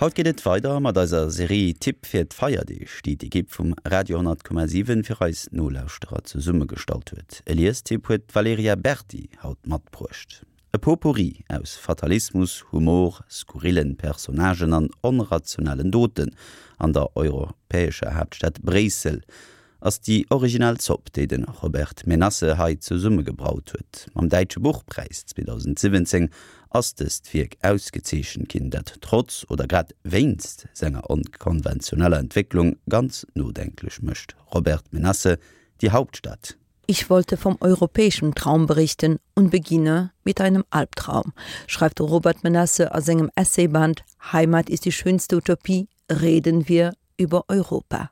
Haut geet et weider mat eiser Serie Tipp fir d'Feierdeeg, déi d'Ekipp vum Radio 10,7 fir eis Nolauschterer zesummegestallt huet. E Liestipp huet d'Valerija Berdi haut matbruecht. E Potpourri aus Fatalismus, Humor, skurrillen Personnagen an onrationellen Doten an der europäescher Haaptstad Bréissel ass déi originell Zopp, déi de Robert Menasse hei zesummegebraut huet. Mam Däitsche Buchpräis 2017 ass dëst Wierk ausgezeechent ginn, dat trotz oder grad wéinst senger onkonventioneller Entwécklung ganz nodenklech mécht. Robert Menasse, Die Hauptstadt. Ich wollte vom europäischen Traum berichten und beginne mit einem Albtraum, schreift de Robert Menasse a sengem Essayband Heimat ist die schönste Utopie, reden wir über Europa.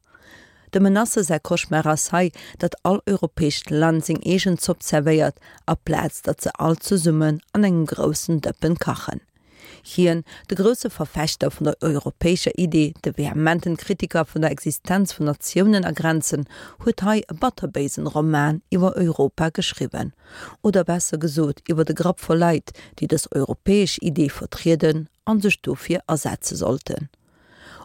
Dem Menasse säi Cauchemar ass hei, datt all europäescht Land seng eegen Zopp zerwéiert, aplaz datt se all zesummen an engem groussen Dëppen kachen. Hien, de grousse Verfechter vun der europäescher Idee, de vehementen Kritiker vun der Existenz vun Natiounen a Grenzen, huet hei e batterbéisen Roman iwwer Europa geschriwwen. Oder besser gesot iwwer e Grapp voll Leit, déi dës europäesch Idee vertrieden an sech dofir asetze sollten.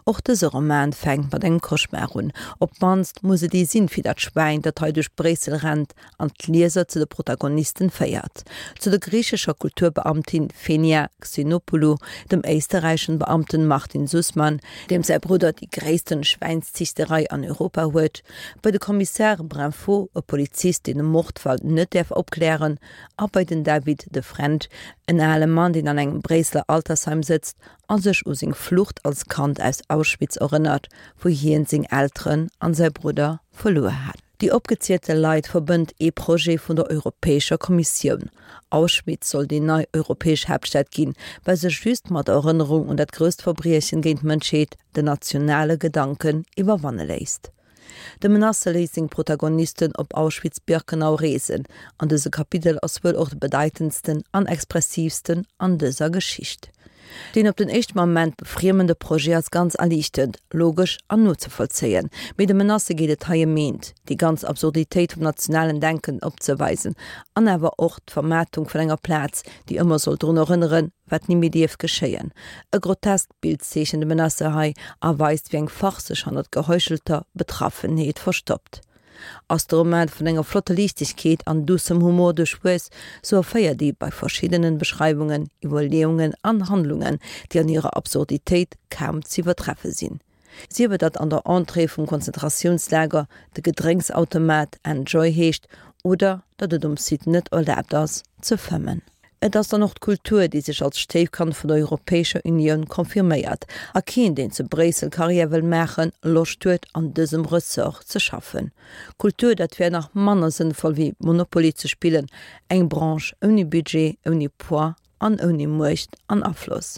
Och dëse Roman fänkt mat engem Cauchemar un. Op d'mannst muss et ee sinn, fir dat Schwäin, dat hei duerch Bréissel rennt an d'Lieser zu de Protagonisten féiert, zu der griichescher Kulturbeamtin Fenia Xenopoulou, dem éisterräichen Beamten Martin Sussmann, deem säi Brudder déi gréissten Schwäinsziichterei an Europa huet, bei de Kommissar Brinfo, e Polizist, deen e Mordfall net däerf opklären, a bei den David de Frend, en ale Mann, deen an engem Bréisseler Altersheim sëtzt a sech u seng Flucht als Kand aus Auschwitz erënnert, wou hien seng Elteren an säi Brudder verluer hat. Déi opgezielte Leit verbënnt ee Projet vun der Europäescher Kommissioun. Auschwitz soll déi nei europäesch Haaptstad ginn, well sech just mat der Erënnerung un dat grousst Verbriechen géint d'Mënschheet den nationale Gedanken iwwerwanne léisst. De Menasse léisst seng Protagonisten op Auschwitz-Birkenau reesen, an dëse Kapitel ass wuel och de bedeitendsten an expressiivsten an dëser Geschicht. Deen op den éischte Moment befriemende Projet ass ganz erliichtend, logesch an nozevollzéien, mee dem Menasse geet et hei ëm eent, déi ganz Absurditéit vum nationalen Denken opzeweisen an awer och d'Vermaartung vun enger Plaz, déi ëmmer soll drun erënneren, wat ni méi dierf geschéien. E groteskt Bild zeechent de Menasse hei a weist, wéi eng Farce sech hannert geheuchelter Betraffenheet verstoppt. Ass de Roman vun enger flotter Liichtegkeet an duussem Humor duerchwuess, sou erféiert ee bei verschiddenen Beschreiwungen Iwwerleeungen an Handlungen, déi an hirer Absurditéit kaum z'iwwertreffe sinn. Sief et datt an der Entrée vum Konzentratiounslager de Gedrénksautomat Enjoy heescht oder datt et um Site net erlaabt ass ze fëmmen. Et ass dann och d'Kultur, déi sech als Stéifkand vun der Europäescher Unioun confirméiert a keen, deen zu Bréissel Karriär wëll maachen, Loscht huet, an dësem Ressort ze schaffen. Kultur, dat wär nach manner sënnvoll wéi Monopoly ze spillen, eng Branche ouni Budget, ouni Poids an ouni Muecht an Afloss.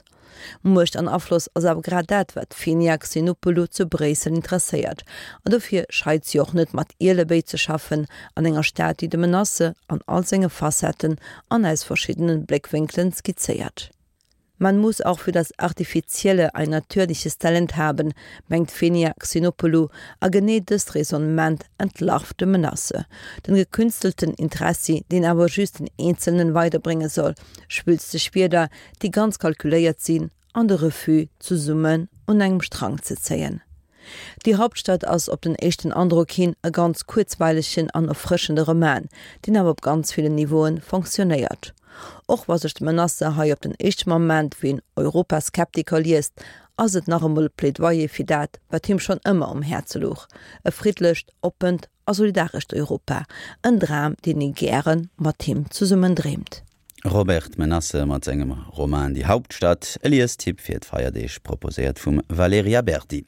Muecht an Afloss ass awer grad dat, wat d'Fenia Xenopoulou zu Bréissel interesséiert. An dofir scheit si och net, mat Ielebéi ze schaffen, an enger Stad, déi de Menasse an all senge Facetten an aus verschiddene Bléckwénkelen skizzéiert. Man muss auch für das Artifizielle ein natürliches Talent haben, mengt d'Fenia Xenopoulou, a genee dëst Raisonnement entlarvt de Menasse. Den gekünstelten Interessi, deen awer just den Eenzelnen weiderbrénge soll, schwülsteg Wierder, déi ganz kalkuléiert sinn, an de Refus, zesummen un engem Strang ze zéien. Die Hauptstadt ass op den éischten Androck hin e ganz kuerzweilegen an erfrëschende Roman, deen awer op ganz villen Niveauen fonctionnéiert. Och wa sech de Menasse hei op den éischte Moment wéi en Europaskeptiker liest, ass et nach emol e Plädoyer fir dat, wat him schonn ëmmer um Häerze louch, e friddlecht, oppent a solidarescht Europa, en Dram, deen ee gäre mat him zesummen dreemt. Robert Menasse mat sengem Roman Die Hauptstadt, e Liestipp fir d'Feierdeeg, proposéiert vum Valerija Berdi.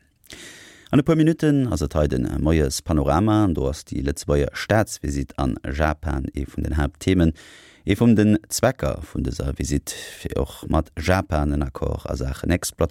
An e puer Minutten ass et hei de Moies Panorama an do ass déi Lëtzebuerger Staatsvisitt an Japan ee vun den Haaptthemen. Ee vum den Zwecker vun dëser Visitt, fir och mat Japan en Accord a Saachen Exploitatioun.